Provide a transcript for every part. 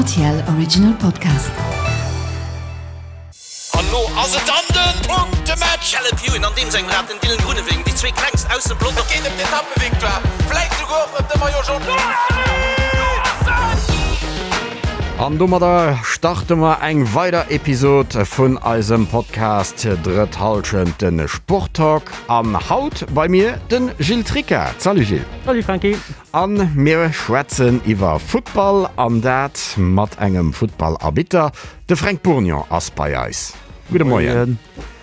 RTL Original Podcast. An lo ass et dann den Punktematch! Caleb Ewan an deem sengem Rad, den Dylan Groenewegen, déi zwee klengst aus dem Pelotong. Et geet ëm d'Etappevictoire, vläit souguer och ëm de Maillot Jaune. An domadder starte mer eng weider Episod vun eisem Podcast Drëtt Hallschent, de Sporttalk. An haut bei mir de Gilles Tricca. Salut Gilles. Salut Franky. An mir schwätzen iwwer Futtball, an dat mat engem Futtballarbitter. De Fränk Bourgnon ass bei eis. Gudde Moien.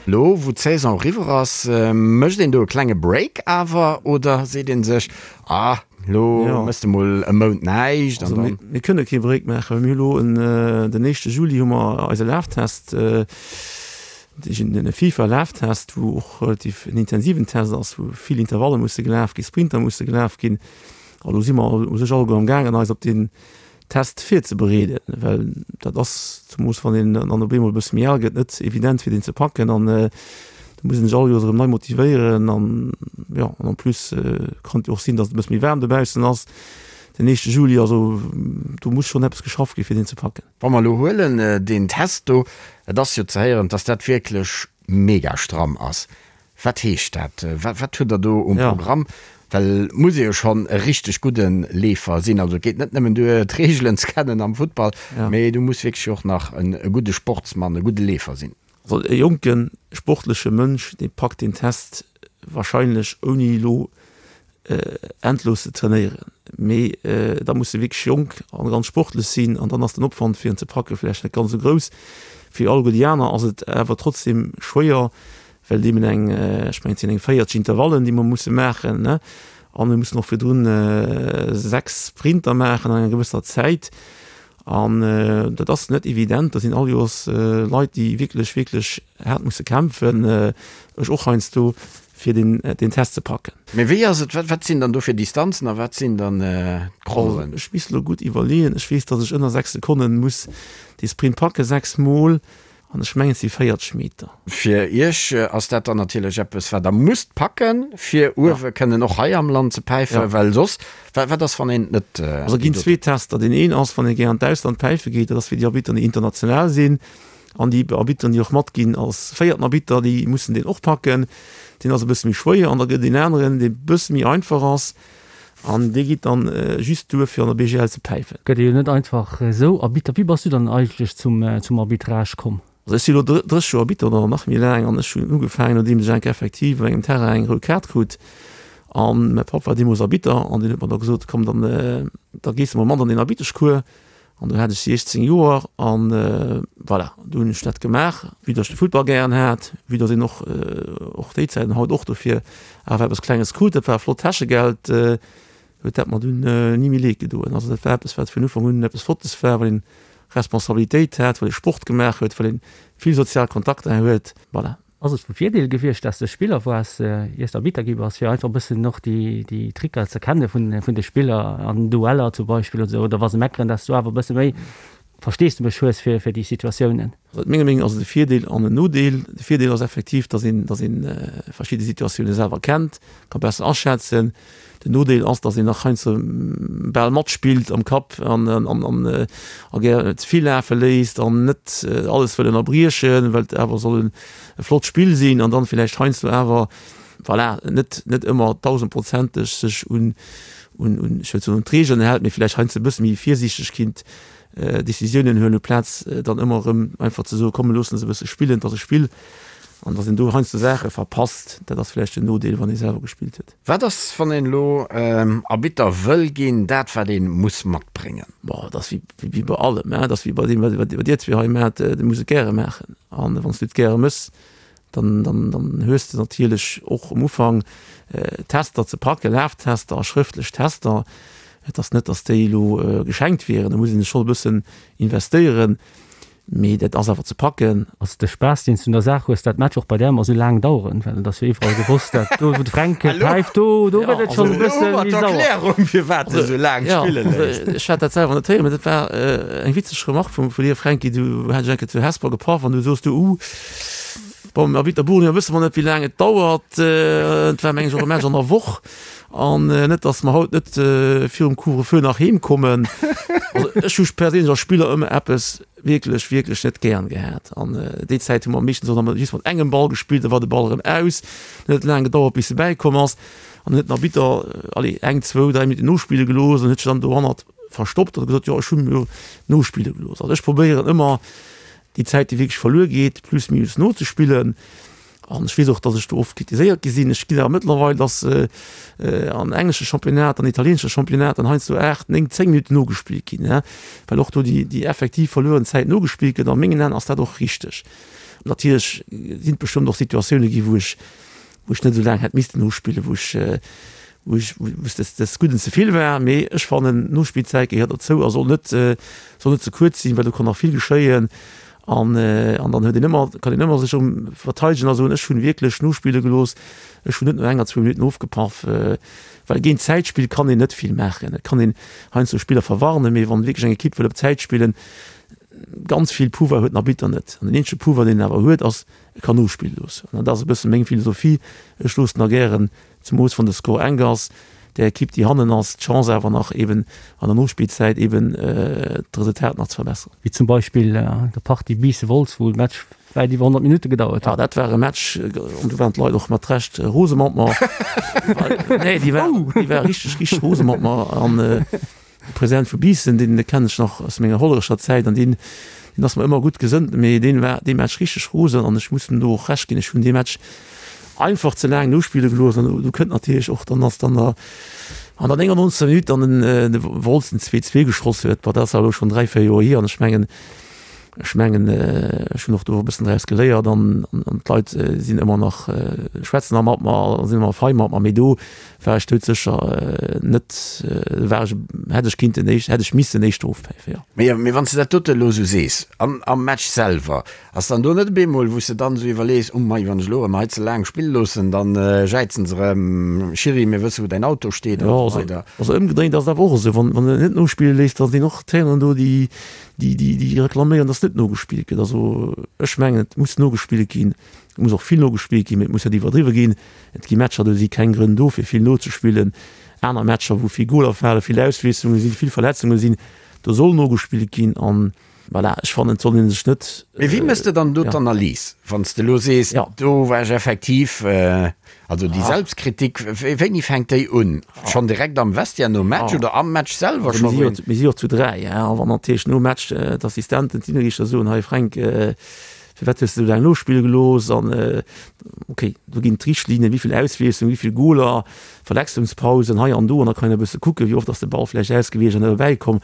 Lo wou d'Saison eriwwer ass, mécht een do e klenge Break awer oder seet ee sech, ah lo méchs de mol e Mount näischt an dann. Mir kënne kee Break maachen, well mir hu lo den éischte Juli hu mer eise Laftest. Den FIFA-Laftest, wou och relativ en intensiven Test ass, wou vill Intervalle musse gelaf ginn, Sprinter musse gelaf ginn. An do si mer u sech alleguer am gaangen, eis op deen Test virzebereeden, well dat ass, zemoos wann een dann op eemol e bësse méi al gëtt, net evident fir deen ze packen. An do muss een sech all Joers erëm nei motivéieren. An jo, an en plus kann et jo och sinn, datt et e bësse méi waarm dobaussen ass den éischte Juli. Also do muss schonn eppes geschafft gi fir deen ze packen. Wa mer elo huelen deen Test do, et ass jo ze héieren, dass dat wierklech mega stramm ass. Wat heescht dat? Wat hutt Der do um Programm? Well et muss ee jo schonn e richteg gudde Leefer sinn. Also et geet net nëmmen duer, d'Reegelen ze kennen am Futtball, mee du muss wierklech och nach e gudde Sportsmann, e gudde Leefer sinn. Also e jonke sportleche Mënsch, dee packt deen Test wahrscheinlech ouni elo endlos ze trainéieren, mee da muss e wierklech jonk an ganz sportlech sinn an dann ass den Opwand fir en ze packe vläicht net ganz esou grouss. Fir alleguer déi aner ass et awer trotzdem schwéier, well et eben eng, ech mengen et sinn eng 40 Intervallen, déi mer musse maachen, ne, a mir mussen och virdrun 6 Sprinter maachen an enger gewësser Zäit an dat ass net evident. Do sinn all Joers Leit, déi wierklech, wierklech haart musse kämpfen, ech och heiansdo, fir den den Test ze packen. Mee wéi ass et, wat sinn dann do fir Distanzen a wat sinn dann d'Crollen? Ech misst elo gutt iwwerleeën. Ech weess, datt ech ënner 6 Sekonnen muss dee Sprint packen, 6 mol, an ech mengen et si 40 Meter. Fir Iech ass dat dann natierlech eppes, wat Der musst packen, fir uewe kënnen och hei am Land ze päifen, well soss, wat ass, wann een et net. Also et ginn zwee Tester. Deen een ass, wann ee gär an d'Ausland päife geet, dat ass fir déi Arbitteren, déi international sinn. An déi Arbitteren, déi och matginn als véierten Arbitter, déi mussen deen och packen. Deen ass e bësse méi schwéier. An da gëtt et een aneren, dee bësse méi einfach ass. An dee geet dann just duer, fir an der BGL ze päifen. Gëtt ee jo net einfach esou Arbitter. Wéi bass du dann eigentlech zum Arbitrage komm? Also ech si elo 30 Joer Arbitter oder nach méi laang an ech hunn ugefaangen, nodeems ech eng Kéier effektiv op engem Terrain eng rout Kaart krut. An mäi Papp war deemools Arbitter an deen huet mer da gesot, komm dann, da gees de mol mat an deen Arbitteschcours. An do hat ech 16 Joer an voilà, do hunn ech dat gemaach, vue datt ech de Futtball gären hat, vue datt een och och déi Zäit an haut och dofir awer eppes Klenges krut, dat war e flott Täschegeld, huet dat mer dunn ni méi leed gedoen. Also dat war eppes, wat vun Ufank un eppes Flottes war, well een Responsabilitéit hat, well ee Sport gemaach huet, well een vill sozial Kontakter huet, voilà. Ass et vu Virdeel gewiescht, dass de Spiller waars, iers de Arbitter gi bass, fir einfach e bëssen och déi Tricker ze kenne vun de Spiller an Dueller zum Beispill oder sou, oder wa se meckeren, dass du awer e bësse méi Versteesdemech hues fir déi Situatiounen? Also menger Meenung ass et e Virdeel an en Nodeel. De Virdeel ass effektiv, dass een, dass een verschidde Situatioune selwer kennt, ka besser aschätzen. Den Nodeel ass, dass een nach heiansdo bal matspillt am Kapp an a gär ze vill lafe léisst an net alles wëll ënnerbriechen, well et awer soll e flott Spill sinn an dann villäicht heiansdo awer, voilà, net net ëmmer dausendprozenteg sech un un un ech wëll soen un d'Regeln hält, mee villäicht heiansdo e bësse méi virsiichteg kinnt Decisiounen huelen, uplaz dann ëmmer erëm einfach ze soen, komm mir loossen se e bësse spillen, et ass e Spill an dass een do heiansdo Saache verpasst, dat ass villäicht den Nodeel, wann ee selwer gespillt huet. Wat ass, wann een elo Arbitter wëll ginn, dat wat ee muss matbréngen? Bon, et ass wéi bei allem, et ass wéi bei deem, wat dir zwee hei maacht, du muss et gäre maachen. An wann s du et gäre méchs, dann, dann, dann hues de natierlech och um Ufank Tester ze packen, Laftester a schrëftlech Tester. Et ass net, datt déi elo geschenkt wieren, do muss een sech schonn e bëssen investéieren. Mee dat ass awer ze packen. Ass de Spaass deen s du un der Saach hues, dat Match och bei där ëmmer esou laang daueren? Well et ass jo iwwerall gewosst, dat do wou de Fränk päift, do do gëtt et schonn e bësse méi sauer. Erklärung firwat de sou laang spille léisst. Ech hat dat selwer net héieren, mee dat war eng witzeg Remark vum vu dir Fränki. Du hat ech eng Kéier zu Hesper gepaff an du soos du, uh. Bon, mam Arbitter Bournier wësse mer net, wéi laang et dauert. Et war, meng ech, och e Match an der Woch. An net, datt mer haut net virum Couvre-feu nach heem kommen. Also ech hu perséinlech als Spiller ëmmer eppes wierklech, wierklech net gären gehat. An déi Zäit hu mer meeschtens och nach just mat engem Ball gespillt, da war de Ball erëm aus. Dann huet et laang gedauert, bis e bäikomm ass. An dann huet den Arbitter, allez, eng, zwou, dräi Minutten nospille gelooss an huet sech dann dohannert verstoppt an huet gesot, jo, ech hu jo nospille gelooss. Also ech probéieren ëmmer, déi Zäit, déi wierklech verluer geet, plus minus nozespillen. An ech weess och, datt ech do oft kritiséiert gi sinn. Ech ginn awer mëttlerweil, datt an englesche Championnat, an italieenesche Championnat dann heiansdo 8, 9, 10 Minutten nogespillt ginn, well och do déi, déi effektiv verlueren Zäit nogespillt gëtt. A mengen Aen ass dat och richteg. Natierlech sinn et bestëmmt och Situatioune gi wou ech, wou ech net esou laang hätt missten nospillen, wou ech, wou ech, wou es des, des Gudden ze vill war. Mee ech fannen, d'Nospillzäit gehéiert dozou a soll net, soll net ze kuerz sinn, well do kann nach vill geschéien. An, an dann huet een ëmmer, kann een ëmmer sech erëm verteidegen a soen, ech hunn wierklech nospille gelooss, ech hunn net no enger, zwou Minutten ofgepaff. Well géint Zäitspill kann een net vill maachen. Et kann een heiansdo Spiller verwarnen, mee wann wierklech eng Ekipp wëll op Zäit spillen, ganz vill Pouvoir huet den Arbitter net. An den eenzege Pouvoir, deen en awer huet, ass, E kann nospille loossen. An dat ass e bësse meng Philosophie. Ech loossen da gären, zemoos wann de Score enk ass, där Ekipp, déi hannen ass, d'Chance awer nach eben an der Nospillzäit eben d'Resultat nach ze verbesseren. Wéi zum Beispill der Partie Biissen-Wolz, wou de Match wäit iwwer 100 Minutte gedauert huet. Jo, dat war e Match, an do waren d'Leit och mat Recht rose mat mer. Nee, déi ware richteg, richteg rose mat mer. An De President vu Biissen, deen kennen ech nach aus menger Hollerecher Zäit an deen, deen ass mer ëmmer gutt gesënnt, mee deen war dee Match richteg rosen an ech muss em do och Recht ginn, ech hunn dee Match einfach ze laang nospille gelooss an do kënnt natierlech och dann, dass dann der an der 99. Minutt dann den de Wolz den 2, 2 geschoss huet. Bon, dat ass awer elo schonn 3, 4 Joer hier an ech mengen, Ech mengen, ech hunn och do e bëssen draus geléiert an d'Leit sinn ëmmer nach, schwätzen nach mat mer a sinn ëmmer fei mat mer. Mee do war ech doudsécher net, war ech, hätt ech kinnten éischt, hätt ech missen éischter ofpäifen, jo. Mee, mee wann s de dat dote elo esou sees, an am Match selwer, ass dann do net op eemol, wou s de dann esou iwwerlees, oh mei, wann ech elo erëm hei ze laang spille loossen, dann jäizen se erëm, Schiri, mir wësse wou däin Auto steet an esou weider. Also ëmgedréint ass et awer och esou, wann, wann en net nospille léisst, da sinn och d'Traineren do, déi, déi, déi, déi reklaméieren, dass net nogespillt gëtt. Also ech mengen, et muss nogespillt ginn, et muss och vill nogespillt ginn, mee et muss net iwwerdriwwe ginn. Et gi Matcher, do si keng Grënn do, fir vill nozespillen. Aner Matcher, wou vill Goler falen, vill Auswiesslunge sinn, vill Verletzunge sinn, do soll nogespillt ginn. An voilà, ech fannen, et soll ee sech net. Mee wéi méchs de dann do d'Analys, wann s de elo sees, do war ech effektiv, Also déi Selbstkritik, wéini fänkt déi un? Schonn direkt am Vestiaire nom Match oder am Match selwer scho? Mir si jo zu 3, a wann natierlech nom Match d'Assistenten, d'Linienriichter soen, hei Fränk, firwat hues de esou laang nospille gelooss? An okay, do ginn d'Richtlinnen, wéi vill Auswiesslung, wéi vill Goler, Verletzungspausen hei an do, an da kann een e bësse kucken, wéi oft ass de Ball vläicht ausgewiescht an net erbäikomm.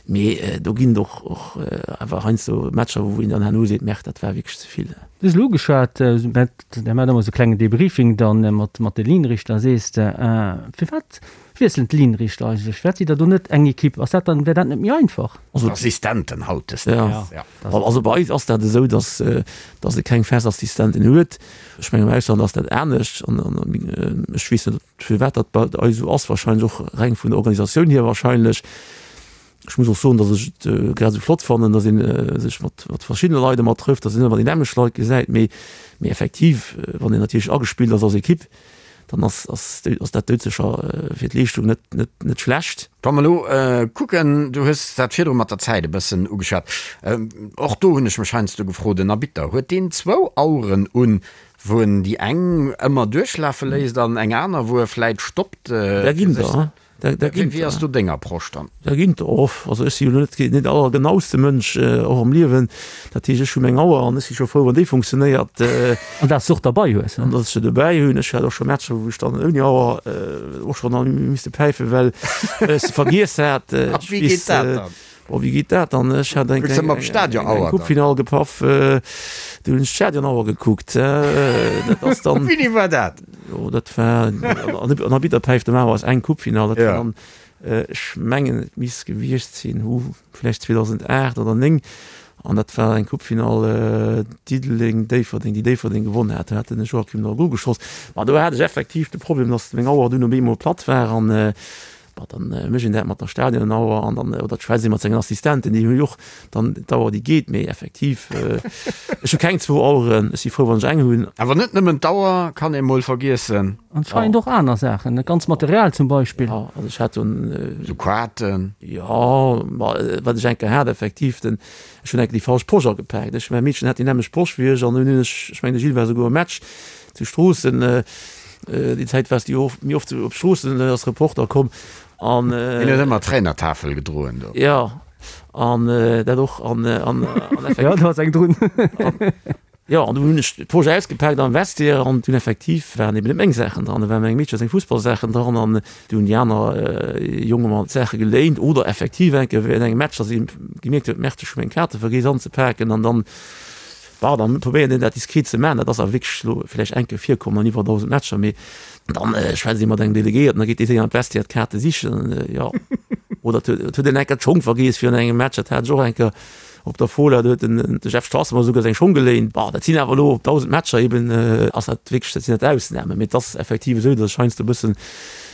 Mee do ginn et och och awer heiansdo Matcher, wou een dann herno seet, Merde, dat war wierklech ze vill. Du hues elo ugeschwat, Der maacht ëmmer esou klengen Debriefing dann mat mat de Linienrichter. Sees de, firwat wiesselen d'Linienrichter eigentlech? Firwat sidd Der do net eng Equipe? Ass dat dann, wär dat net méi einfach? Also Assistenten hautdesdaags, ja. Also bei eis ass dat esou, datt datt e keng fest Assistenten huet. Ech mengen am Ausland ass dat anescht an an ech weess net firwat dat bei eis esou ass, wahrscheinlech och reng vun der Organisatioun hier wahrscheinlech. Ech muss och soen, datt ech et grad esou flott fannen, datt ee sech mat mat verschiddene Leit ëmmer trëfft, datt een net ëmmer déi nämmlecht Leit gesäit. Mee mee effektiv, wann een natierlech agespillt ass als Ekipp, dann ass ass ass dat doudsécher fir d'Leeschtung net net net schlecht. Wa mer elo kucken, du hues dat virdru mat der Zäit e bëssen ugeschwat, och do hunn ech mech heiansdo gefrot, en Arbitter, huet deen zwou Aueren un, wou en déi eng ëmmer duerchlafe léisst an eng aner, wou e vläit stoppt? Där ginn der. Wéi ass do deng Approche dann? Da ginn der och. Also ech si jo elo net deen allergenauste Mënsch, och am Liewen. Dat heescht, ech hu meng Auer an ech si scho frou, wann déi funktionéiert. An dass s de och derbei hues. An dass ech se dobäi hunn. Ech hat och scho Matcher, wou ech dann ouni Auer och schonn hu misste päifen, well ech se vergiess hat. A wéi geet dat dann? Bon, wéi geet dat dann? Ech hat eng Coupe-Finall gepaff, do hunn ech d'Stadionauer gekuckt. Dat ass dann. Wéini war dat? Jo, dat war an Arbitter päift normalerweis eng Coupe-Finall. Dat war dann, ech mengen, et misst gewiescht sinn, hu vläicht 2008 oder 9. An dat war eng Coupe-Finall Diddeleng-Déifferdeng, déi Déifferdeng gewonnen hat. Do hat den Joachim Nagel geschoss. Ma do hat ech effektiv de Problem, datt meng Auer dunn op eemol platt war an. Bon, dann mécht een dat mat der Stadionauer an dann, oder et schwätzt ee mat sengen Assistenten, déi hu jo och dann d'Auer, déi geet. Mee effektiv, ech hu keng zwou Aueren, ech si frou, wann ech eng hunn. Awer net nëmmen d'Auer kann ee mol vergiessen. Anscheinend och aner Saachen, dat ganzt Material zum Beispill. Jo, also ech hat dunn. Sou Quaten. Jo, ma wat ech eng Kéier hat, effektiv, den, ech hunn eng Kéier déi falsch Posch agepaakt. Ech, mäi Meedchen hat déi nämmlecht Posch wéi ech an dunn hunn ech, ech mengen de Gilles war souguer um Match zu Stroossen, déi Zäit waars du jo och méi oft op Stroossen als Reporter komm an. Deen huet ëmmer d'Trainertafel gedroen do. Jo, an dat och an, an effektiv. Jo, do ass eng drun. Jo, an du hunn ech d'Posch ausgepaakt am Vestiaire an dunn effektiv waren eben net meng Saachen dran, da waren mengem Meedche seng Fussballsaachen dran an du hunn déi aner Jonge mer d'Saache geléint oder effektiv eng Kéier während engem Match, dass ee gemierkt huet, Merde, ech hu meng Kaarte vergiess anzepaken an dann, bon, dann probéiert een dat diskret ze maachen. Dat ass awer wierklech elo vläicht eng Kéier virkomm an iwwer 1.000 Matcher, mee dann schwätzt ee mat engem Delegéierten, da geet dee séier an d'Vestiaire d'Kaarte sichen, jo. Oder et huet een eng Kéier d'Schong vergiess virun engem Match, dat hat ech och eng Kéier. Op der Fola, do huet den de Jeff Strasser mer esouguer seng Schong geléint. Bon, dat sinn awer elo op 1.000 Matcher eben, ass dat wierklech, dat sinn dat Ausnamen. Mee et ass effektiv esou, datt ech heiansdo e bëssen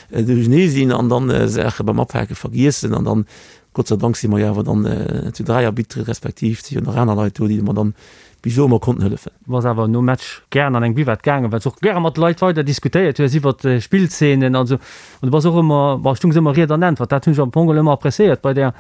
duerchernee sinn an dann Saache beim Apake vergiessen. An dann, Gott sei Dank si mer jo awer dann zu 3 Arbitere respektiv et si jo nach aner Leit do, déi mer dann bis elo ëmmer konnten hëllefen. Du bass awer nom Match gären an eng Buvette gaangen, well s och gäre mat Leit weider diskutéiert hues iwwert Spillzeenen an esou. An du bass och ëmmer, bon, stungs ëmmer Ried an Äntwert. Dat hunn ech am Fong geholl ëmmer appréciéiert bei där.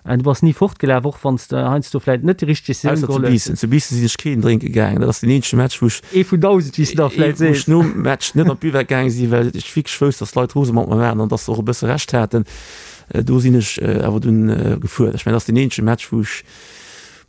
Du bass ni fortgelaf, och wann s de heiansdo vläit net déi richteg Decisioun Ausser zu geholl hues. Biissen. Zu Biissen sinn ech keen drénke gaangen. Dat ass deen eenzege Match, wou ech, Ee vun 1.000, wéi s de da vläit wou ech sees. nom Match net an d'Buvette gaange sinn, well ech wierklech wousst, dass d'Leit rose mat mer waren an dass se och e bësse Recht haten. Do sinn ech awer dunn gefuer. Ech mengen, dat ass deen eenzege Match, wou ech,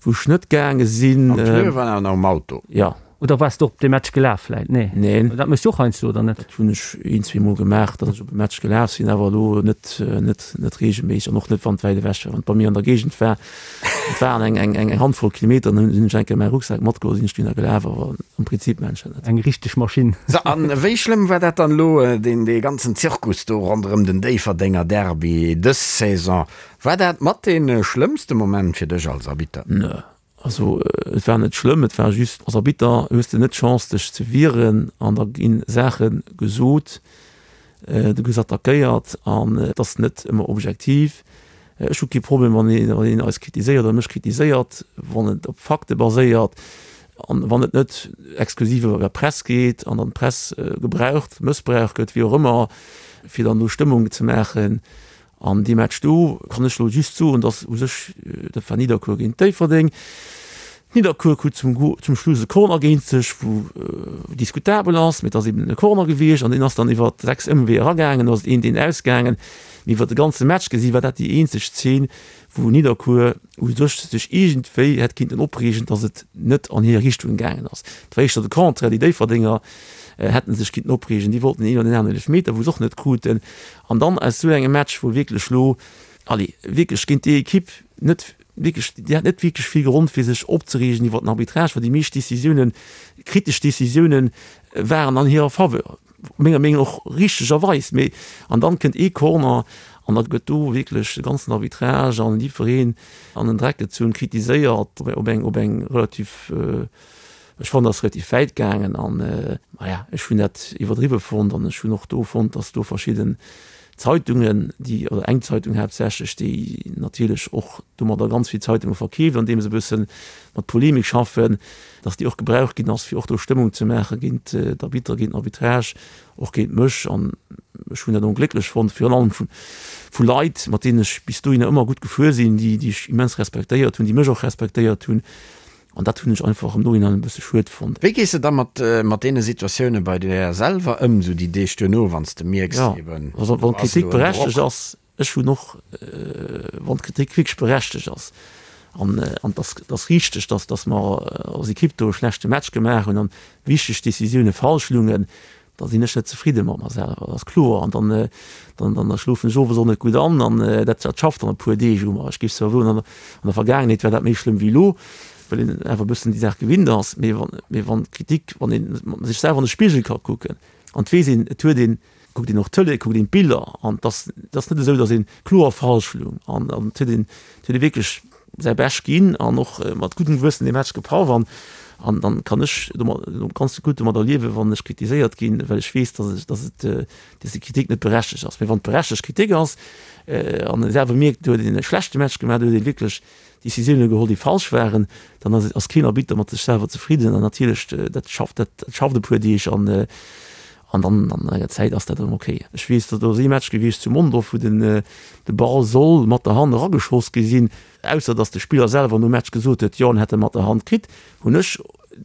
wou ech net gaange sinn. An d'Pneue waren awer nach um Auto. Jo. Oder waars de och op dee Match gelaf vläit? Nee. Neen. Dat méchs du och heiansdo, oder net? Dat hunn ech een, zweemol gemaach, datt ech op e Match gelaf sinn, awer elo net, net, net reegelméisseg an och net, wann et wäit ewech war. Wann et bei mir an der Géigend war, et waren eng, eng, eng Handvoll Kilometer, dann hunn ech eng Kéier mäi Rucksak matgeholl, sinn ech dunner gelaf, awer am Prinzip maachen ech dat net. Eng richteg Maschinn. So, an wéi schlëmm war dat dann elo, deen, dee ganzen Zirkus do ronderëm den Déifferdenger Derby dës Saison? War dat mat dee schlëmmste Moment fir dech als Arbitter? Nö, Also et war net schlëmm, et war just, als Arbitter hues de net d'Chance dech ze wieren an da gi Saache gesot, du gëss attackéiert an et ass net ëmmer objektiv. Ech hu kee Problem wann een eis kritiséiert oder mech kritiséiert, wann et op Fakte baséiert an wann et net exklusiv iwwer der Press geet an dann d'Press gebraucht, mëssbraucht gëtt, wéi och ëmmer, fir dann do Stëmmung ze maachen. An dee Match do kann ech elo just soen, datt u sech, dat war Nidderkuer géint Déifferdeng, Nidderkuer krut zum zum Schluss e Corner géint sech, wou diskutabel ass, mee et ass eben e Corner gewiescht an deen ass dann iwwer 6 Ëmweeër eragaangen, do ass et 1, 1 ausgaangen. Mee iwwer de ganze Match gesi war dat déi eenzeg Zeen, wou Nidderkuer u sech sech iergendwéi hätt kinnten opreegen, datt et net an hir Richtung gaangen ass. Et war éischter de Contraire, déi Déifferdenger hätte sech kinnten opreegen, déi wollten een oder deen aneren Eelefmeter, wou se och net kruten. An dann aus esou engem Match, wou wierklech elo, allez, wierklech géint déi Ekipp net wierklech, déi hat net wierklech vill Grond fir sech opzereegen iwwert den Arbitrage, well déi meescht Décisiounen, kritesch Décisiounen waren an hirer Faveur, menger Meenung och richtegerweis. Mee an dann kënnt ee Corner an da gëtt do wierklech de ganzen Arbitrage an jiddwereen an den Dreck gezunn, kritiséiert op eng, op eng relativ, Ech fannen, dat ass relativ wäit gaangen an, maja, ech hunn dat iwwerdriwwe fonnt an ech hunn och do fonnt, datt do verschidden Zeitungen, déi, oder eng Zeitung haaptsächlech, déi natierlech och domadder ganz vill Zeitunge verkeeft, andeem se e bësse mat Polemik schaffen, datt déi och gebraucht ginn ass, fir och do Stëmmung ze maache géint d'Arbitter, géint den Arbitrage, och géint mech. An ech hunn dat onglécklech fonnt, virun allem vu vu Leit, mat deenen ech bis dohinner ëmmer gutt gefuer sinn, déi déi ech immens respektéiert hunn, déi mech och respektéiert hunn. An dat hunn ech einfach am Nohinein e bësse schued fonnt. Wéi gees de da mat mat deene Situatioune bei der selwer ëm, sou déi Deeg duerno, wann s de mierks, Jo, eben also do wann ass d'Kritik elo en Drock? berechtegt ass, ech hunn och, wann d'Kritik wierklech berechtegt ass an an et ass et ass richteg, datt datt mer als Ekipp do e schlechte Match gemaach hunn an wichteg Decisioune falsch lungen, da sinn ech net zefridde mat mer selwer, dat ass kloer. An dann, dann, dann da schlofen ech owes och net gutt an an dat, dat schafft dann e puer Deeg u mer. Ech géif zwar soen, an der Vergaangenheet war dat méi schlëmm wéi elo, well een awer e bëssen déi Saach gewinnt ass. Mee wann, mee wann d'Kritik, wann ee sech selwer an de Spigel ka kucken an et weess een, et huet een, kuckt een och d'Tëlee, kuckt een d'Biller an et ass, et ass net esou, datt ee kloer falsch lung an et huet een, et huet ee wierklech. säi Bescht ginn an och mat guddem Gewëssen dee Match gepaff an an dann kann ech domat ganz gutt domadder liewen, wann ech kritiséiert ginn, well ech weess, dass ech, dass et, dass déi Kritik net berechtegt ass. Mee wann et berechtegt Kritik ass an ee selwer mierkt, do huet een e schlechte Match gemaach, do huet ee wierklech Decisioune geholl, déi falsch waren, dann ass ass keen Arbitter mat sech selwer zefridden an natierlech dat schafft dat schafft e puer Deeg an an dann an enger Zäit ass dat erëm ok. Ech weess, do ass ee Match gewiescht zu Mondorf, wou den de Ball soll mat der Hand erageschoss gi sinn, ausser datt de Spiller selwer nom Match gesot huet, jo en hätt e mat der Hand kritt, hunn ech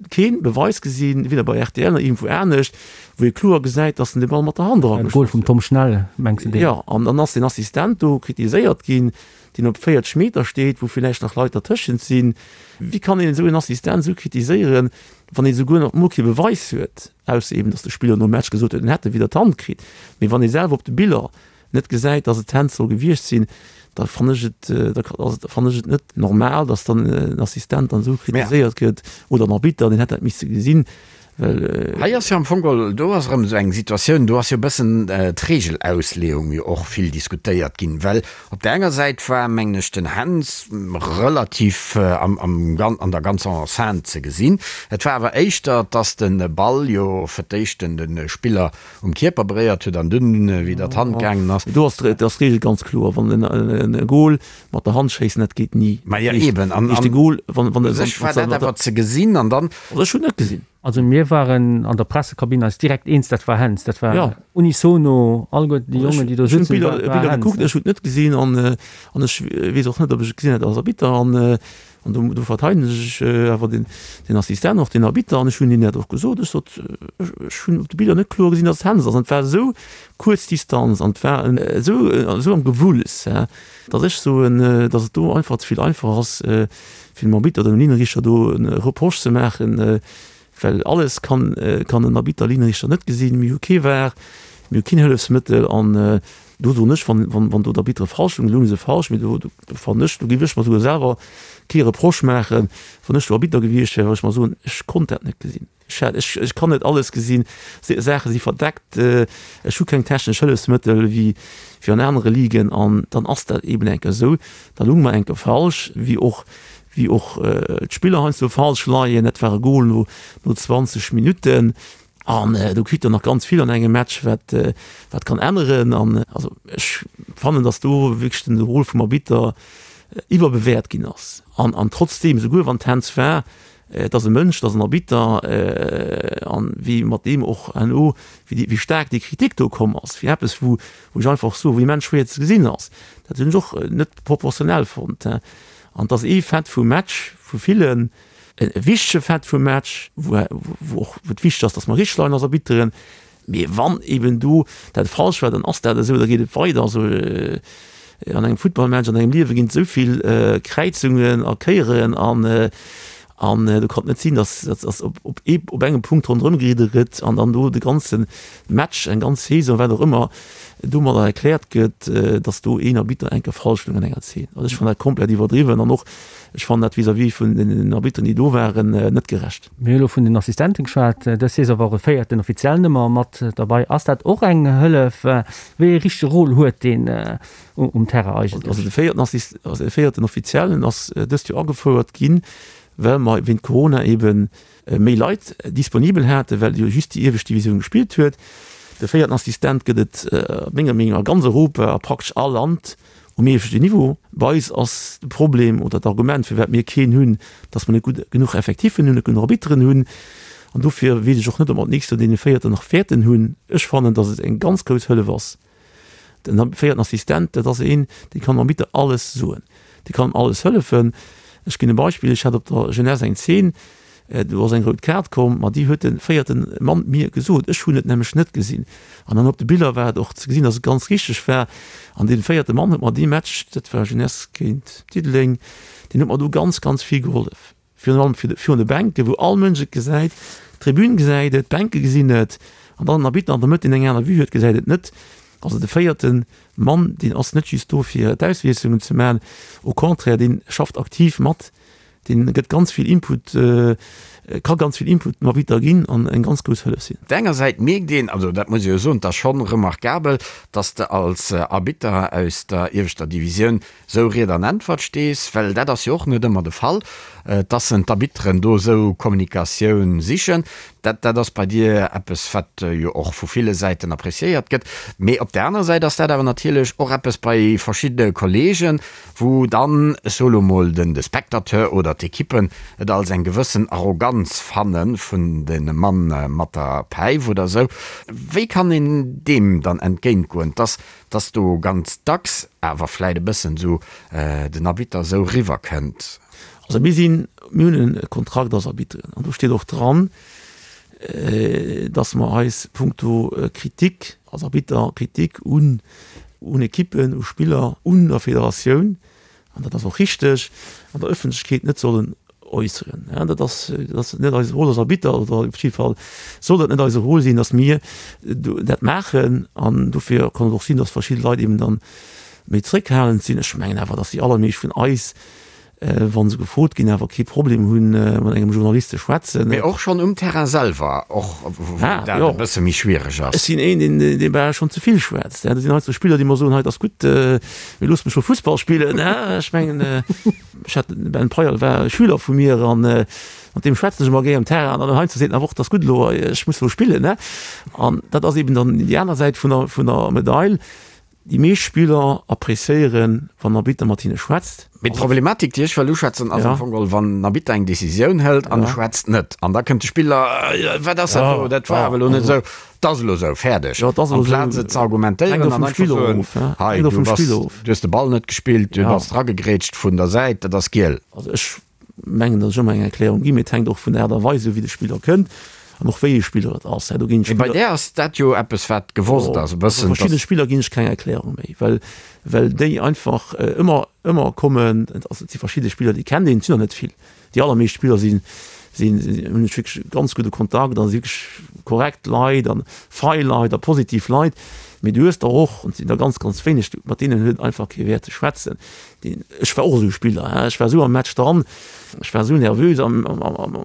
kee Beweis gesinn, weder bei rtl nach iergendwou anescht, wou ee kloer gesäit, datt en de Ball mat der Hand erageschoss huet. Goal vum Tom Schnell, mengs de deen? Jo, an dann ass den Assistent do kritiséiert ginn, deen op 40 Meter steet, wou villäicht nach Leit dertëschent sinn. Wéi kann een esou en Assistent esou kritiséieren, wann ee souguer nach emol kee Beweis huet, ausser eben, datt de Spiller nom Match gesot huet, en hätt e widder d'Hand kritt. Mee wann ee selwer op de Biller net gesäit, datt et d'Hand soll gewiescht sinn, da fannen ech et, da fannen ech et net normal, datt dann en Assistent dann esou kritiséiert gëtt oder en Arbitter, deen hätt dat misse gesinn. Well. Hei ass jo am Fong geholl, do ass erëm esou eng Situatioun, do ass jo e bëssen d'Regelausleeung jo och vill diskutéiert ginn, well op där enger Säit war, mengen ech, den Hens relativ am, am, an der ganzer Enceinte ze gesinn. Et war awer éischter, dass de Ball jo fir d'éischt den, de Spiller um Kierper beréiert huet an dunn widder d'Hand gaangen ass. Do ass d'Regel ganz kloer, wann en e Goal mat der Hand schéissen, dat geet ni. Ma jo eben, an de Goal, wann, wann, u sech war dat awer ze gesinn an dann. Also ech hunn net gesinn. Also mir waren an der Pressekabinn eis direkt eens, dat war Händs. Dat war ja. unisono, alleguer déi Jongen, déi do sitzen. Ech hunn d'Biller gekuckt, ech hunn et net gesinn an, an ech weess och net, ob ech et gesinn hätt als Arbitter an, an do, do verteidegen ech awer den, den Assistent, och den Arbitter an ech hunn hinnen dat och gesot. Ech sot, ech, ech hunn op de Biller net kloer gesinn, datt et Händs ass an et war esou kuerz Distanz an et war esou, esou am Gewulls, datt ech soen, datt et do einfach ze vill einfach ass, fir dem Arbitter oder dem Linienrichter do e Reproche ze maachen, well alles kann kann en Arbitter, Linienrichter net gesinn. Mir hu kee var, mir hu keen Hëllefsmëttel an do soen ech, wann wann wann do d'Arbitere falsch hunn, elo hu se falsch, mee do do fannen ech, do géif ech mer souguer selwer kee Reproche maachen, wann ech do Arbitter gewiescht wär, well ech mer soen, ech konnt dat net gesinn. Ech, ech kann net alles gesinn, Saache si verdeckt, ech hu keng technesch Hëllefsmëttel wéi wéi an anere Ligen an dann ass dat eeben eng Kéier esou. Da lounge mer eng Kéier falsch, wéi och wéi och d'Spiller heiansdo falsch leien. Dat war e Gol no no 20 Minutten an do kritt der nach ganz vill an engem Match, wat wat kann änneren an also ech fannen, datt do wierklech den Rôle vum Arbitter iwwerbewäert ginn ass an an trotzdeem, esouguer wann d'Hand war, Et ass e Mënsch, et ass en Arbitter, an wéi mat deem och herno, wéi wéi staark déi Kritik do komm ass, fir eppes wou wou ech einfach soen, wou immens schwéier ze gesinn ass, dat hunn ech och net proportionell fonnt. An et ass ee Fait vum Match, vu villen, e wichtege Fait vum Match, wou wou och wou et wichteg ass, datt mer richteg leien als Arbitteren, Mee wann eben do dat falsch war, dann ass dat esou, da geet et weider. Also an engem Futtballmatch, an engem Liewe ginn et esou vill Kräizungen a Kéieren an an do kann et net sinn, datt datt op op ee op engem Punkt ronderëm geridde gëtt an dann do de ganze Match, eng ganz Saison, wat och ëmmer, domadder erkläert gëtt, datt do een Arbitter eng Kéier falsch stoung an enger Zeen. Also ech fannen dat komplett iwwerdriwwen an och ech fannen dat vis-à-vis vun den Arbitteren, déi do waren, net gerecht. Mir hu lo vun den Assistenten geschwat. Dës Saison war och e véierten Offiziell nëmmer mat derbei. Ass dat och eng Hëllef? Wéi ee richtege Rôle huet deen um Terrain eigentlech? Also de véierten Assist, also de véierten Offiziellen ass dëst Joer agefouert ginn, well mer wéint Corona eebe méi Leit disponibel haten, well jo just déi iewescht Divisioun gespillt huet. De véierten Assistent gëtt et menger Meenung no a ganz Europa, a praktesch all Land. Um ieweschten Niveau. Bei eis ass de Problem oder d'Argument, firwat mir keen hunn, dass mer net gutt genuch Effektiffen hunn, net genuch Arbitteren hunn. An dofir weess ech och net, ob mer d'nächst Joer dee véierten nach wäerten hunn. Ech fannen, dass et eng ganz grouss Hëllef ass. Den véierten Assistent, dat ass een, dee kann dem Arbitter alles soen, dee kann em alles hëllefen. Ech ginn e Beispill, Ech hat op der Jeunesse eng Zeen, Do ass eng rout Kaart komm, ma déi huet de véierte Mann mir gesot. Ech hunn et nämlech net gesinn. An dann op de Biller war et och ze gesinn, datt et ganz richteg war. An dee véierte Mann huet mer dee Match, dat war Jeunesse géint Diddeleng, deen huet mer do ganz, ganz vill gehollef. Virun allem virun de Bänken, wou all Mënsch et gesäit, d'Tribün gesäit et, d'Bänke gesinn et, an dann den Arbitter an der Mëtt, deen eng aner Vue huet, gesäit et net. Also de véierte Mann, deen ass net just do fir d'Auswiesslungen ze maachen, au contraire, dee schafft aktiv mat. Deen gëtt ganz vill Input, ka ganz vill Input dem Arbitter ginn an eng ganz grouss Hëllef sinn. Op der enger Säit mierkt een, also dat muss ee jo soen, et ass schonn remarkabel, dass de als Arbitter aus der ieweschter Divisioun sou Ried an Äntwert stees, well dat ass jo och net ëmmer de Fall, dass en d'Arbitteren do esou Kommunikatioun sichen. Dat, dat ass bei dir eppes, wat jo och vu ville Säiten appréciéiert gëtt. Mee op der anerer Säit ass dat awer natierlech och eppes bei verschiddene Kollegen, wou dann, ech soe lo mol, den de Spectateur oder d'Ekippen et als eng gewëssen Arroganz fanne vun de Mann mat der Päif oder esou. Wéi kann een deem dann entgéintgoen, dass dass do ganz dacks awer vläit e bëssen esou den Arbitter esou riwwer kënnt? Also mir sinn, mir hunn e Kontrakt als Arbitteren an do steet och dran, dass mer eis punkto Kritik als Arbitter, Kritik un un Ekippen, u Spiller, un der Federatioun, an dat ass och richteg, an der Ëffentlechkeet net sollen äusseren. Dat ass, dat ass net eise Rôle als Arbitter, oder op jidde Fall soll dat net eise Rôle sinn, dass mir dat maachen. An dofir kann et och sinn, dass verschidde Leit eben dann méi zréckhalend sinn. Ech mengen awer, dass déi allermeescht vun eis wa se gefrot ginn, awer kee Problem hunn, mat engem Journalist ze schwätzen. Mee och schonn um Terrain selwer, och wou dat e bësse méi schwiereg ass. Ech sinn een, deen, dee bal schonn ze vill schwätzt. Do sinn heiansdo Spiller, déi mer soen, hei, et ass gutt, mee looss mech scho Fussball spillen. Ech mengen, ech hat den Ben Payal war e Schüler vu mir an mat deem schwätzen ech ëmmer gär um Terrain. An dann heiansdo seet en awer och, et ass gutt elo, ech muss elo spillen. An dat ass eben dann déi aner Säit vun der, vun der Medail. Déi meescht Spiller appréciéieren, wann den Arbitter mat hinne schwätzt. Mee d'Problematik, déi ech wëll uschwätzen, ass am Fong geholl, wann den Arbitter eng Decisioun hëlt an e schwätzt net. An da kënnt de Spiller, Wat ass dat do? Dat war awer elo net esou. Et ass elo esou, fäerdeg. Amplaz et ze argumentéieren an einfach soen, Hei, du bass, du hues de Ball net gespillt, du bass dragegrätscht vun der Säit, dat ass giel. Also ech mengen, datt ech ëmmer eng Erklärung ginn, mee et hänkt och vun der Aart a Weis of, wéi de Spiller kënnt an och wéi ee Spiller et ass. Do ginn Mee bei där ass dat jo eppes, wat gewosst ass e bëssen. Bei verschiddene Spiller ginn ech keng Erklärung méi, well, well déi einfach ëmmer, ëmmer kommen. Also et si verschidde Spiller, déi kennt een, et sinn der net vill. Déi allermeescht Spiller sinn, sinn, hunn ech wierklech ganz gudde Kontakt a si wierklech korrekt Leit a fei Leit a positiv Leit. Mee du hues der och, an et sinn der ganz, ganz wéineg, mat deenen huet et einfach kee Wäert ze schwätzen. Deen, ech war och esou e Spiller, hein, ech war esou am Match dran, ech war esou nervös am, am, am,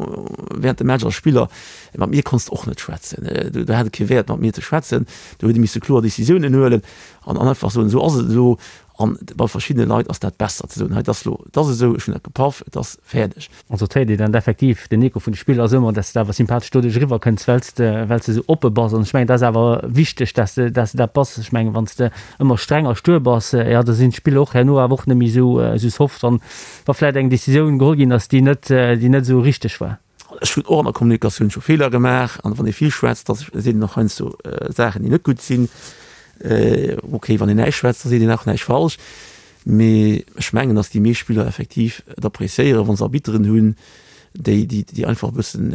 während dem Match als Spiller, mat mir konns de och net schwätzen, do, do hat et kee Wäert mat mir ze schwätzen, do huet ee misse kloer Decisiounen huelen an, an einfach soen, esou ass et elo an bei verschiddene Leit ass dat besser ze soen, hei, et ass elo, et ass esou, ech hunn dat gepaff, et ass fäerdeg. Also et héiert een dann effektiv, den Echo vun de Spiller ass ëmmer, dass de awer sympathesch doduerch eriwwer kënns, well s de, well s de esou oppe bass. An ech mengen, dat ass awer wichteg, dass de, dass de dat bass. Ech mengen, wann s de ëmmer streng a stuer bass, jo, da sinn d'Spiller och herno awer och net méi esou, esou soft, wann, wa vläicht eng Decisioun geholl ginn ass, déi net, déi net esou richteg war. Ech hunn och an der Kommunikatioun scho Feeler gemaach. An wann ee vill schwätzt, da seet een och heiansdo Saachen, déi net gutt sinn. Okay, wann een näischt schwätzt, da seet een och näischt falsch. Mee ech mengen, datt déi meescht Spiller effektiv et appréciéieren, wa se Arbitteren hunn, déi, déi einfach e bëssen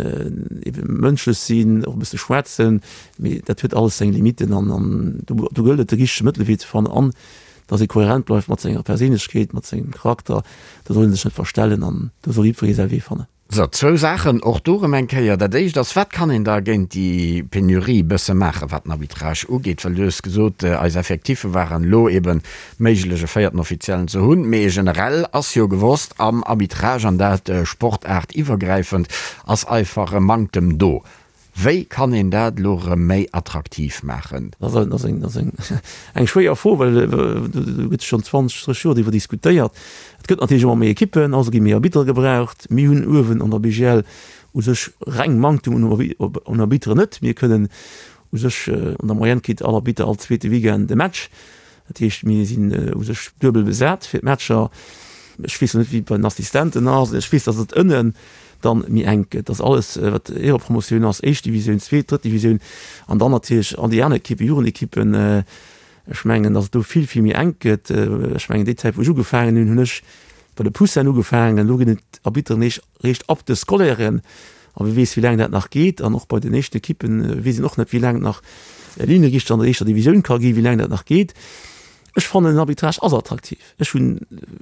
ebe mënschlech sinn, och e bësse schwätzen. Mee dat huet alles seng Limitten an an do do gëllt et de richtege Mëttelwee ze fannen an datt ee kohärent bleift mat senger Perséinlechkeet, mat sengem Charakter. Do soll ee sech net verstellen an do soll jiddweree säi Wee fannen. Sou, zwou Saachen och do erëm eng Kéier. Dat éischt ass, Wat kann een da géint déi Penurie e bësse maachen, wat den Arbitrage ugeet? Well du hues gesot, eis Effectiffe waren elo eeben méiglech, e véierten Offiziellen ze hunn. Mee generell ass jo gewosst, am Arbitrage, an dat sportaartiwwergräifend, ass einfach e Manktem do. Wéi kann een dat elo erëm méi attraktiv maachen? Dat ass eng schwéier Fro, well do gëtt schonn 20, 30 Joer driwwer diskutéiert. Et gëtt natierlech ëmmer méi Ekippen, also gi méi Arbitere gebraucht. Mir hunn uewen an der BGL u sech reng Manktum un Arbitteren net. Mir kënnen u sech, an der Moyenne kritt all Arbitter all zweete Weekend e Match. Dat heescht, mir sinn u sech duebel besat fir d'Matcher. Ech weess lo net, wéi et bei den Assistenten ass. Ech weess, datt et ënnen dann méi enk gëtt, datt alles, wat Éierepromotioun ass, éischt Divisioun, zweet, drëtt Divisioun an dann natierlech all déi aner Ekippen, Jugendekippen, ech mengen, datt et do vill, vill méi enk gëtt. Ech mengen, déi Zäit, wou ech ugefaangen hunn, hunn ech bei de Poussinen ugefaangen. Elo ginn et Arbitteren eréischt ab de Scolairen. A wie weess, wéi laang dat nach geet. An och bei den éischten Ekippen weess een och net, wéi laang et nach Linienrichter an der éischter Divisioun ka ginn, wéi laang dat nach geet. Ech fannen, den Arbitrage ass attraktiv. Ech hunn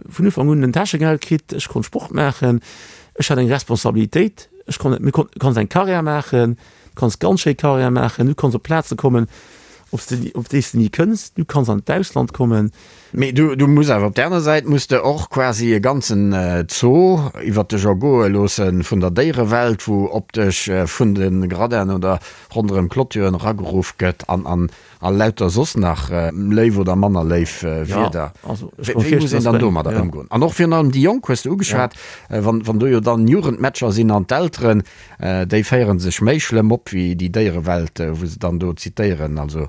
vun Ufank un en Täschegeld kritt, ech konnt Sport maachen, ech hat eng Responsabilitéit, ech konnt, mir konnt, du kanns eng Karriär maachen, du kanns ganz schéi Karriär maachen, du kanns op Plaze kommen, op s de, op déi s de ni kënns, du kanns an d'Ausland kommen. Mee du, du muss awer op där aner Säit muss de och quasi e ganzen Zoo iwwert dech ergoe loosse vun der Déierewelt, wou op dech vun de Gradinen oder ronderëm Clôturen erageruff gëtt an an a lauter soss nach léif oder manner léif Wierder. Wéi muss een dann domadder ëmgoen? An och virun allem déi Jonk hues de ugeschwat, wann wann do jo dann Jugendmatcher sinn an d'Elteren, déi féiere sech méi schlëmm op wéi déi Déierewelt, wou se dann do zitéieren. Also.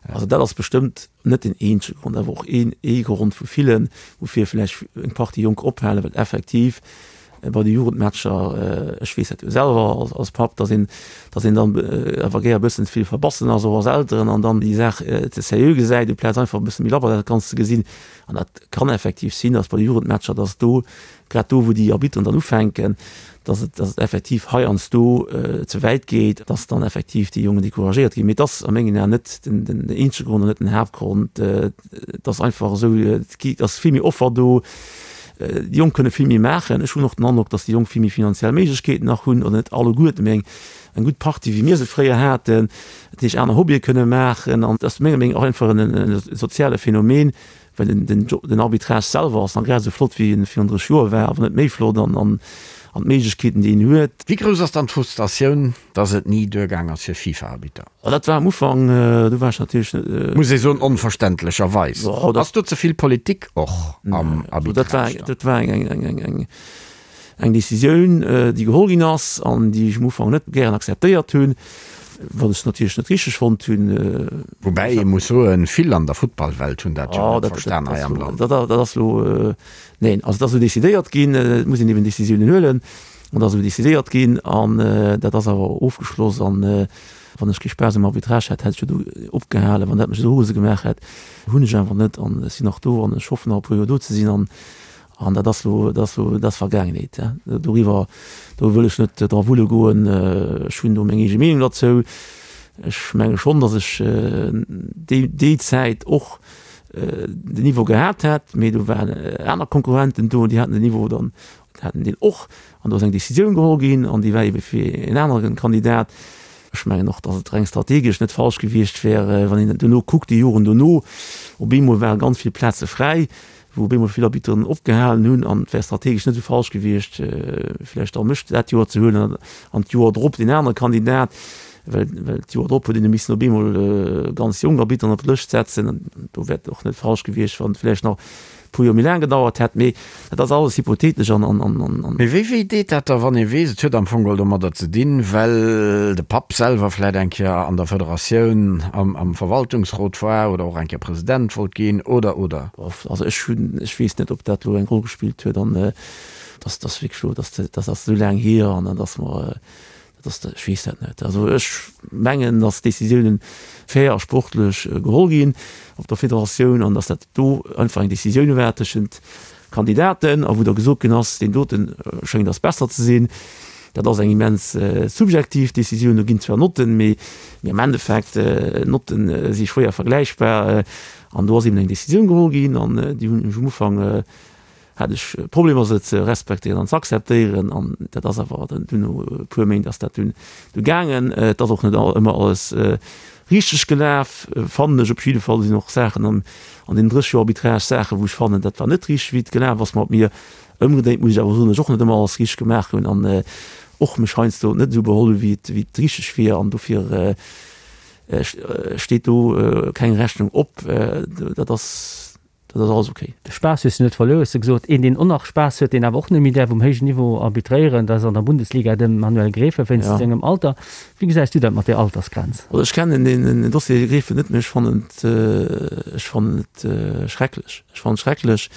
Also dat ass bestëmmt net den eenzege Grond, awer och een ee Grond vu villen, woufir vläicht eng Partie Jonk ophalen, well effektiv bei de Jugendmatcher, ech weess dat jo selwer als Papp, datt een, datt een dann awer gär e bëssen ze vill verbassen ass, och als Elteren, an dann déi Saach ze sérieux gesäit, amplaz einfach e bësse méi labber dat Ganzt ze gesinn. An dat kann effektiv sinn, datt bei de Jugendmatcher, datt do, grad do wou déi Arbitteren dann ufänken, datt et, datt et effektiv heiansdo ze wäit geet, datt dann effektiv déi Jongen decouragéiert ginn. Mee et ass a mengen Aen net den, den eenzege Grond an net den Haaptgrond. Et ass einfach esou, et ass vill méi Offer do, déi Jonk kënne vill méi maachen. Ech hunn och den Androck, datt déi Jonk vill méi finanziell Méiglechkeeten nach hunn, oder net alleguerten, mee eng, eng gutt Partie wéi mir se fréier haten, dat heescht aner Hobbye kënne maachen. An et ass menger Meenung och einfach en soziale Phänomen, Well den, den, den Arbitrage selwer ass nach grad esou flott, wéi en virun 30 Joer war, awer net méi flott an, an, an d'Méiglechkeeten, déi een huet. Wéi grouss ass dann d'Frustratioun, dass et ni duergaang ass fir FIFA-Arbitter? Oh, dat war am Ufank, do war ech natierlech net. Muss ee soen, onverständlecherweis. Ass do ze vill Politik och am Arbitrage dann? Dat war eng, eng, eng, eng, Eng Decisioun, déi geholl ginn ass an déi ech am Ufank net gären akzeptéiert hunn, wat ech natierlech net richteg fonnt hunn. Woubäi ee muss soen, vill an der Futtballwelt hunn dat jo net verstan hei am Land. Dat ass elo, neen, also et ass esou decidéiert ginn, et muss een eben Decisiounen huelen an dat ass esou decidéiert ginn an dat ass awer ofgeschloss. An wann ech kee Spaass um Arbitrage hätt, hätt ech jo do opgehalen. Wann dat mech esou rose gemaach hätt, hunn ech einfach net an ech sinn nach do an ech hoffen nach e puer Joer do ze sinn an An dat ass elo, dat ass elo, dat ass Vergaangenheet. Doriwwer, do wëll ech net dra wulle goen. Ech hunn do meng eege Meenung derzou. Ech menge schonn, datt ech déi, déi Zäit och den Niveau gehat hätt, mee do waren aner Konkurrenten do, déi haten den Niveau dann, haten deen och. An do ass eng Décisioun geholl ginn an déi war ebe fir en anere Kandidat. Ech mengen och, datt et reng strategesch net falsch gewiescht wär, wann een duerno kuckt, déi Joren dono, op eemol ware ganz vill Plaze fräi. wou op eemol vill Arbitteren opgehalen hunn an et wär strategesch net esou falsch gewiescht, vläicht da mech dat Joer ze huelen an d'Joer drop deen anere Kandidat, well well d'Joer drop huet een missen op eemol ganz jonk Arbitteren op d'Lëscht setzen an do wär et och net falsch gewiescht, wann et vläicht nach e puer Joer méi laang gedauert hätt. Mee dat ass alles hypothetesch an an an. Mee wéi wéi deet dat da, wann ee weess, et huet am Fong geholl domadder ze dinn, well de Papp selwer vläit eng Kéier an der Federatioun am am Verwaltungsrot war oder och eng Kéier President wollt ginn oder oder? Also ech hunn, ech weess net, ob dat elo eng Roll gespillt huet an dass dass wierklech elo, dass dat ass esou laang hier an dat ass mer, dat ass, ech weess dat net. Also ech mengen, dass d'Décisiounen fair a sportlech geholl ginn op der Federatioun an dass dat do einfach eng Décisioun war tëschent Kandidaten a wou da gesot ginn ass, deen dote schéngt eis besser ze sinn. Dat ass eng immens subjektiv Décisioun. Do ginn zwar Notten, mee am Endeffekt, Notten si schwéier vergläichbar. An do ass eben eng Décisioun geholl ginn an déi hunn ech um Ufank, hat ech Problemer se ze respektéieren an ze akzeptéieren an dat ass awer dann dunn no e puer Méint ass dat dunn du gaangen. Et ass och net ëmmer alles richteg gelaf, fannen ech. Op jidde Fall sinn och Saachen an an deenen 30 Joer Arbitrage Saachen, wou ech fannen, dat war net richteg wéi et gelaf ass mat mir. Ëmgedréint muss ech awer soen, datt ech och net ëmmer alles richteg gemaach hunn an och mech heiansdo net esou beholl hu wéi et wéi et richteg wier an dofir Steet do keng Rechnung op, dat ass dat ass alles ok. De Spaass hues du net verluer, hues de gesot. Een, deen och nach Spaass huet, deen awer och net méi däerf um héijen Niveau arbitréieren, dat ass an der Bundesliga de Manuel Gräfe wéinst sengem Alter. Wéi gesäis du dat mat där Altersgrenz? Also ech kennen deen Dossier Gräfe net, mee ech fannen et, ech fannen et schrecklech. Ech fannen et schrecklech,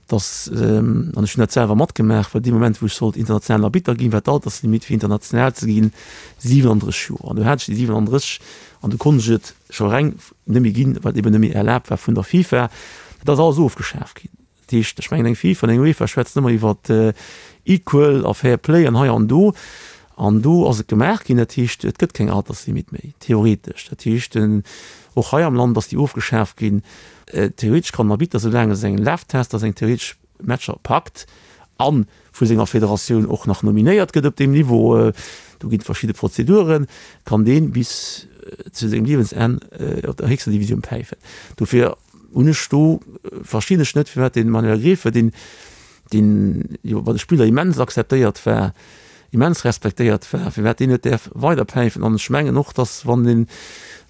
dass, an ech hunn dat selwer matgemaach, well dee Moment wou ech sollt internationalen Arbitter ginn, war d'Alterslimitt fir international ze ginn 37 Joer. An du hat ech déi 37 an du konnt ech et scho reng net méi ginn, well et eben net méi erlaabt war vun der FIFA. Dat ass alles ofgeschaaft ginn. Dat heescht, ech mengen eng FIFA an eng UEFA schwätzen ëmmer iwwer equal a fair play an hei an do. An do ass et gemaach ginn, dat heescht, et gëtt keng Alterslimit méi, theoretesch. Dat heescht, och hei am Land ass déi ofgeschaaft ginn. Theoretesch kann den Arbitter, soulaang e seng Laftester, seng theoretesch Matcher packt a vu senger Federatioun och nach nominéiert gëtt op deem Niveau, do ginn et verschidde Prozeduren, kann dee bis zu sengem Liewensenn op der héchster Divisioun päifen. Dofir. Hunn ech do, verstinn ech net, firwat de Manuel Gräfe, deen, deen jo bei de Spiller immens akzeptéiert war, immens respektéiert war, firwat deen net däerf weiderpäifen. An ech mengen och, datt wann de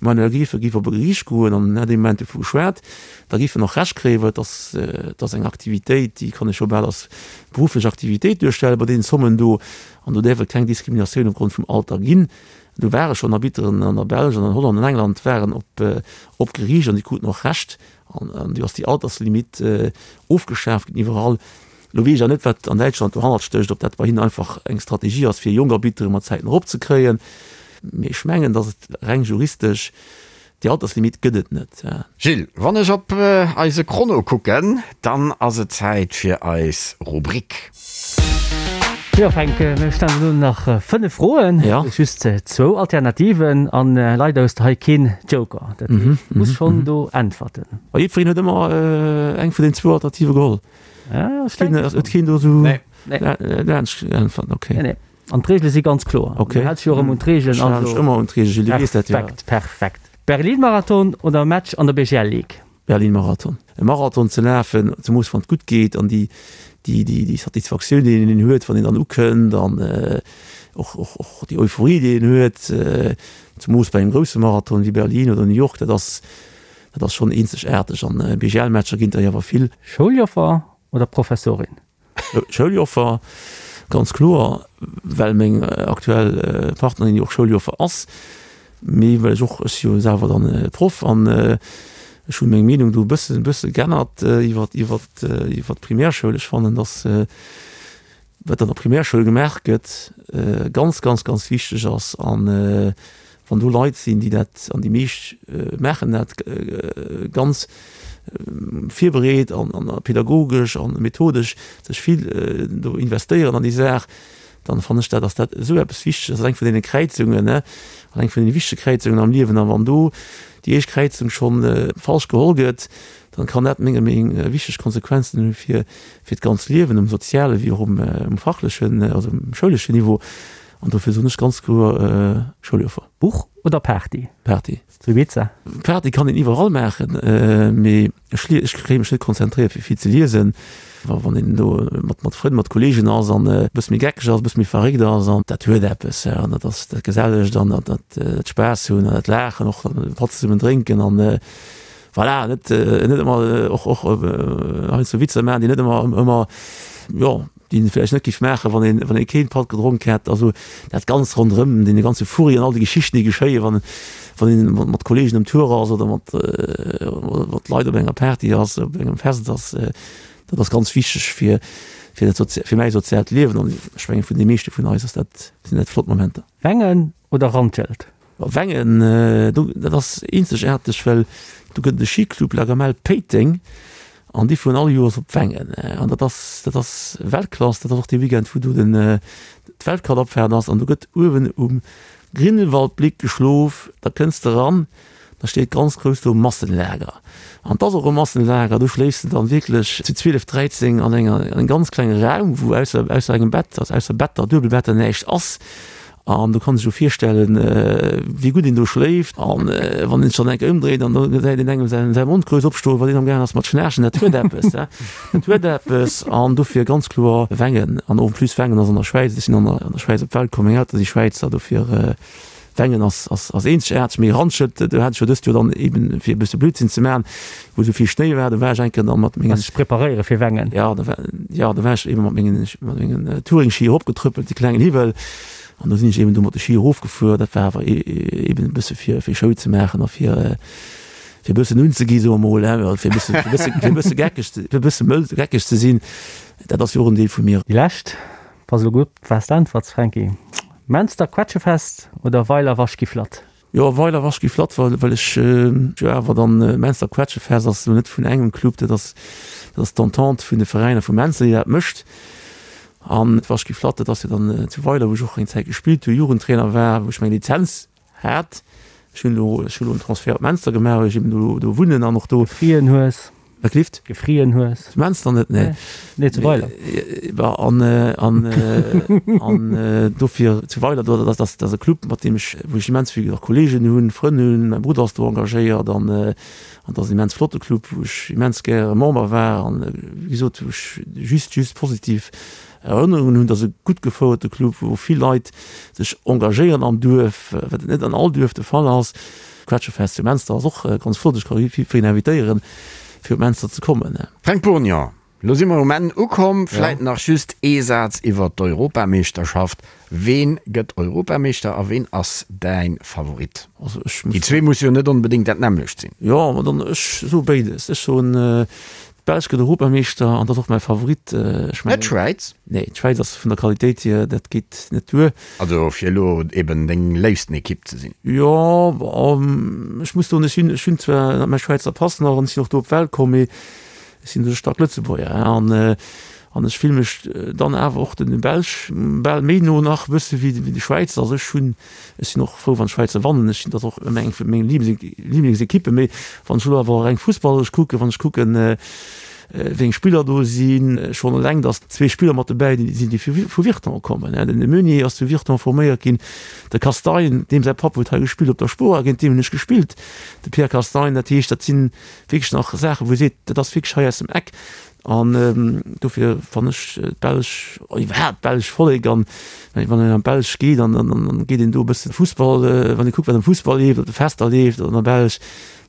Manuel Gräfe géif op e Geriicht goen, an en hätt ee Moment dovu geschwat, da géif en och Recht kréien, well et ass, et ass eng Aktivitéit, déi kann ee scho bal als berufflech Aktivitéit duerstellen bei deenen Zommen do. An do däerf et keng Diskriminatioun opgrond vum Alter ginn. Do ware schonn Arbitteren an der Belsch an an Holland an England waren op op Geriicht an déi kruten och Recht. An du ass déi Alterslimitt ofgeschaaft ginn iwwerall. Lo weess ech awer net, wat an Däitschland dohannert stécht, ob dat bei hinnen einfach eng Strategie ass, fir jonk Arbittere mat Zäiten eropzekréien. Mee ech mengen, datt et reng juristesch, déi Alterslimitt gëtt et net. Gilles, wann ech op eise Chrono kucken, dann ass et Zäit fir eis Rubrik. Jo Fränk, mir stellen elo nach 5 Froen, just zwou Alternativen an leider hues de hei keen Joker, dat heescht du muss schonn do äntwerten. A jiddwereen huet ëmmer eng vun den zwou Alternative geholl? Huet keen do esou laanscht geäntwert? Okay. Nee, nee. An d'Reegele si ganz kloer. Okay. Du häls dech jo och ëmmer un d'Reegelen. Ech halen mech ëmmer un d'Reegelen, Gilles, du weess dat jo. Perfekt, perfekt. Berlin-Marathon oder Match an der BGL Ligue? Berlin-Marathon. E Marathon ze lafen, zemoos wann et gutt geet an déi, déi, déi, déi Satisfaktioun, déi een huet, wann een dann ukënnt an och, och, och déi Euphorie, déi een huet, zemoos bei engem grousse Marathon wéi Berlin oder New York, dat ass, dat ass schonn eenzegaarteg. An BGL-Matcher ginn der jo awer vill. Schouljoffer oder Professorin? Schouljoffer, ganz kloer, well meng aktuell Partnerin jo och Schouljoffer ass, mee well ech och, ech si jo selwer dann Proff an ech hunn meng Meenung do e bëssen, e bësse geännert iwwer, iwwer, iwwer d'Primärschoul. Ech fannen, datt wat an der Primärschoul gemaach gëtt, ganz, ganz, ganz wichteg ass an wann do Leit sinn, déi dat, an déi meescht maachen dat ganz virbereet an pädagogesch an methodesch sech vill do investéieren an déi Saach, dann fannen ech dat, ass dat esou eppes Wichteges, ass eng vun deene Kräizungen, ne, an eng vun deene wichtege Kräizungen am Liewen. A wann do déi éischt Kräizung scho falsch geholl gëtt, dann kann dat menger Meenung wichteg Konsequenzen hu fir fir d'ganz Liewen um soziale wéi och um fachlechen, also um schouleschen Niveau. An dofir soen ech ganz kloer Schouljoffer. Buch oder Party? Party. Zu Ibiza? Party kann een iwwerall maachen, mee ech ech kréie mech net konzentréiert fir vill ze liesen. Wa wann een do mat mat Frënn, mat Kolleegen ass an e bësse méi geckeg ass, e bësse méi verréckt ass an dat huet eppes an dat ass dat Gesellegt an dat dat Spaass hunn an dat Laachen, och dann e Patt zesummen drénken an voilà, net net ëmmer och och heiansdo Witzer maachen, déi net ëmmer ëmmer jo. déi een vläicht net géif maachen, wann een, wann ee keen Patt gedronk hätt. Also dat Ganzt ronderëm, dee ganze Furri an all déi Geschichten, déi geschéien, wann, wann een mat, mat Kollegen um Tour ass oder mat, mat Leit op enger Party ass, op engem Fest ass, dat ass ganz wichteg fir, fir dat sozi-, fir mäi soziaalt Liewen an ech mengen vun de meeschte vun eis ass dat, sinn dat flott Momenter. Wengen oder Randschelt? Wengen, do, dat ass eenzegaarteg, well do gëtt et e Skiclub, La Gamelle Péiteng, an déi fueren all Joers op Wengen. An dat ass, dat ass Weltklass, dat ass och dee Weekend, wou do den, d'Weltcupabfahrt ass. An do gëtt uewen um Grindelwaldblick geschlof, da kënns de eran, da steet ganz grouss do Massenlager. An 't ass och e Massenlager, do schléifs de dann wierklech zu 12, 13 an enger, an engem ganz klenge Raum, wou ausser, ausser engem Bett, also ausser Better, Duebelbetter näischt ass. An do kann sech jo virstellen, wéi gutt een do schléift. An wann een sech dann eng Kéier ëmdréit an da gesäit een engem säin säi Mond grouss opstoen, wann een amgaangen ass mat schnaarchen, dat huet eppes, he, dat huet eppes. An dofir ganz kloer Wengen. An en plus Wengen ass an der Schwäiz, ech sinn an der an der Schwäiz op d'Welt komm, meng Eltere si Schwäizer, dofir Wengen ass ass ass eenzegaarteg. Mee Randschelt, do hat ech jo dëst Joer dann eben, fir e bësse Blödsinn ze maachen, wou esou vill Schnéi war, do war ech eng Kéier dann mat mengen. Sech preparéiere fir Wengen. Jo, do war, jo, do war ech eben mat mengen mat mengen Touringski eropgetrëppelt, déi klengen Hiwwel, an do sinn ech eben do mat de Ski erofgefuer. Dat war awer eben e bësse fir fir Show ze maachen a fir fir e bëssen unzegi soe mer mol, hein, fir e bësse fir e bësse fir e bësse geckeg ze fir e bësse mëll geckeg ze sinn. Dat ass jo och en Deel vu mir. Déi lescht, pass elo gutt op, wat s de äntwerts, Franky, Menster Quetschefest oder Weiler Waschgiflatt? Jo, Weiler Waschgiflatt, well well ech jo awer dann Menster Quetschefest ass elo net vun engem Club, dat ass dat ass d'Entente vun de Veräiner vu Menster, déi dat mécht. An d'Waschgiflatt, dat ass jo dann zu Weiler, wou ech och eng Zäit gespillt hunn, Jugendtrainer war, wou ech meng Lizenz hat. Ech hunn elo ech hunn elo en Transfert op Menster gemaach, well ech eben do do wunnen an och do. Gefrieren hues. Wat gelift? Gefrieren hues. Zu Menster net, nee. Nee, zu Weiler. An, an, an dofir zu Weiler, do, dat ass, dat ass e Club, mat deem ech, wou ech immens vill och Kolleegen hunn, Frënn hunn. Mäi Brudder ass do engagéiert an, an dat ass en immens flotte Club, wou ech immens gäre Member war an, wéi gesot, wou ech just, just positiv Erënnerungen hunn. Dat ass e gutt gefouerte Club, wou vill Leit sech engagéieren am Duerf, wat net an all Duerf de Fall ass. D'Quetschefest zu Menster ass och ganz flott. Ech ka jiddwereen invitéieren, fir op Menster ze kommen. Fränk Bourgnon, Lo si mer um Enn ukomm. Vläit nach just ee Saz iwwer d'Europameeschterschaft. Ween gëtt Europameeschter a ween ass däin Favorit? Déi zwee musse jo net onbedéngt dat nämmlecht sinn. Jo, ma dann, ech soe béides. Ech soen, d'Belsch gëtt Europameeschter an dat ass och mäi Favorit. Ech mengen. Net d'Schwäiz? Nee, d'Schwäiz ass vun der Qualitéit hier, dat geet net duer. Also fir elo eben deng léifsten Ekipp ze sinn. Jo, ech muss soen, ech sinn, ech hunn zwar mäi Schwäizer Pass nach an ech sinn och do op d'Welt komm, mee ech sinn e staark Lëtzebuerger an an ech fille mech dann awer och den Belsch bal méi no nach e bësse wéi de Schwäizer. Also ech hunn, ech sinn och frou wann d'Schwäizer wannen, ech sinn, dat ass och ëmmer eng vu menge Liblingsekippen, mee wann ech elo awer reng fussballeresch kucken, wann ech kucken, wéi eng Spiller do sinn, schonn eleng datt zwee Spiller mat dobäi sinn, déi vu Virton kommen. Den Meunier ass zu Virton forméiert ginn, de Castagne, deem säi Papp huet hei gespillt op der Spora, géint deem hunn ech gespillt, de Pierre Castagne. Dat heescht, dat si wierklech nach Saachen, wou ee seet, dat ass wierklech hei aus dem Eck. An dofir fannen ech d'Belsch, iwwerhaapt d'belsch Vollek, an wann een an d'Belsch geet, an geet een do e bëssen Fussball, wann ee kuckt wat am Fussball leeft, op de Fester leeft an der Belsch,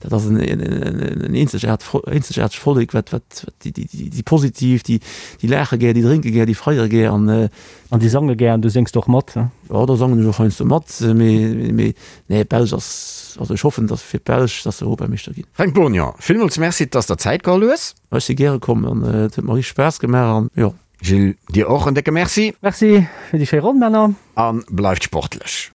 dat ass en eenzegaartegt Vollek, wat, wat, déi, déi, déi positiv, déi, déi laache gär, déi drénke gär, déi feiere gär an. An déi sange gär an du séngs och mat, ne? Jo, do sangen ech och heiansdo mat, mee, mee nee, d'Belsch ass, also ech hoffen, dass fir d'Belsch, dass se Europameeschter ginn. Fränk Bourgnon, villmools Merci, dass der Zäit geholl hues. Ech si gäre komm an et huet mer richteg Spaass gemaach an jo. Gilles, dir och en décke Merci. Merci fir déi schéi Ronn, Männer. A bleift sportlech.